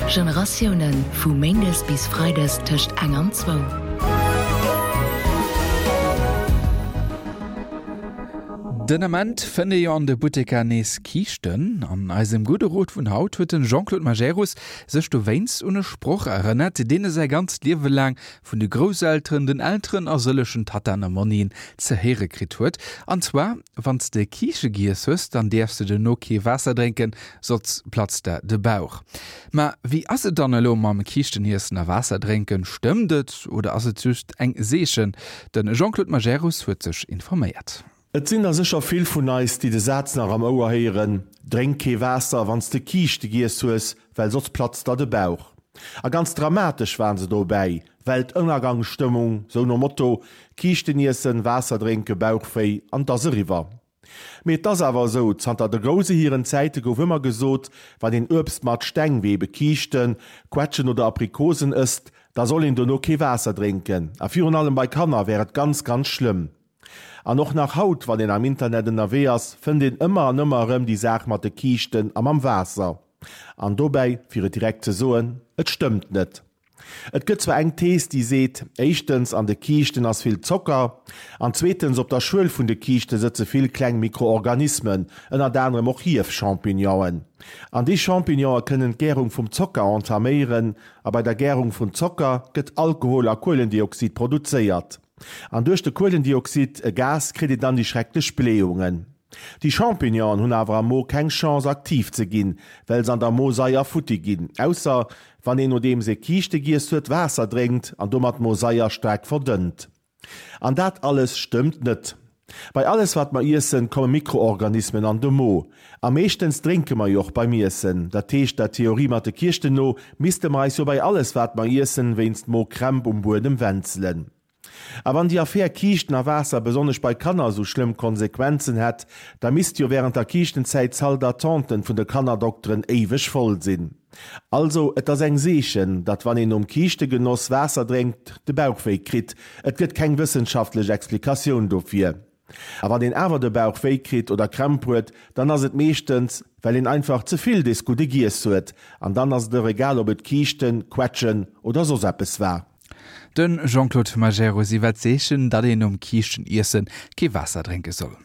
Generatiounen, vu méindes bis freides tëscht eng an zwou. Den Ament fënnt ee jo an de Butteker nees Kiischten. An eisem gudde Rot vun haut huet den Jean-Claude Majerus sech dowéinst un e Sproch erënnert, deen e säi ganzt Liewe laang vun de Grousselteren, den Elteren a sëllechen Tattaen a Monnien ze héiere kritt huet. An zwar, Wann s de Kiische giess hues, dann däerfs de duerno kee Waasser drénken, soss platzt der de Bauch. Ma wéi ass et dann elo mam Kiischteniessen a Waasser drénken? Stëmmt et oder ass et just eng Seechen? De Jean-Claude Majerus huet sech informéiert. Et sinn der sécher vill vun eis, déi de Saz nach am Ouer héieren, Drénk kee Waasser, wann s de Kiischte giess hues, well soss platzt der de Bauch. A ganz dramatesch waren se dobäi, Weltënnergangsstëmmung, sou nom Motto, Kiischten iessen, Waasser drénken, Bauchwéi an 't ass eriwwer. Mee et ass awer esou, zanter de Grouse hiren Zäite gouf ëmmer gesot, wann een Uebst mat Steng, wéi ebe Kiischten, Quetschen oder Aprikosen ësst, da soll een dono kee Waasser drénken. A virun allem bei Kanner wär et ganz, ganz schlëmm. An och nach haut, wann een am Internet ënnerwee ass, fënnt een ëmmer an ëmmer erëm déi Saach mat de Kiischten a mam Waasser. An dobäi, fir et direkt ze soen, et stëmmt net. Et gëtt zwar eng Thees, déi seet, éischtens, an de Kiischten ass vill Zocker, an zweetens, op der Schuel vun de Kiischte sëtze vill kleng Mikroorganismen, ënnert anerem och Hief-Champignonen. An déi Champignone kënnen d'Gärung vum Zocker entaméieren, a bei der Gärung vun Zocker gëtt Alkohol a Kuelendioxid produzéiert. An duerch de Kuelendioxid, e Gas, kritt een dann déi schrecklech Blähungen. Déi Champignonen hunn awer am Mo keng Chance aktiv ze ginn, well se an der Mosaier futti ginn, ausser wann een nodeems ee Kiischte giess huet Waasser drénkt an domat d'Mosaier staark verdënnt. An dat alles stëmmt net. Bei alles wat mer iessen komme Mikroorganismen an de Mo. A meeschtens drénke mer jo och beim Iessen. Dat heescht der Theorie mat de Kiischten no misste mer eis jo bei alles wat mer iessen wéinst Mokrämp um Buedem wänzelen. A wann déi Affär Kiischten a Waasser besonnesch bei Kanner esou schlëmm Konsequenzen hätt, da misst jo während der Kiischtenzäit d'Salle d'attenten vun de Kannerdokteren éiweg voll sinn. Also, et ass eng Seechen, datt wann een nom Kiischtegenoss Waasser drénkt, de Bauch wéi kritt. Et gëtt keng wëssenschaftlech Explikatioun dofir. A wann een awer de Bauch wéi kritt oder Krämp huet, dann ass et meeschtens, well een einfach ze vill des Gudde giess huet. An dann ass et och egal, ob et Kiischten, Quetschen oder soss eppes war. De Jean-Claude Majerus iwwer d'Seechen, datt een nom Kiischten-Iessen kee Waasser drénke soll.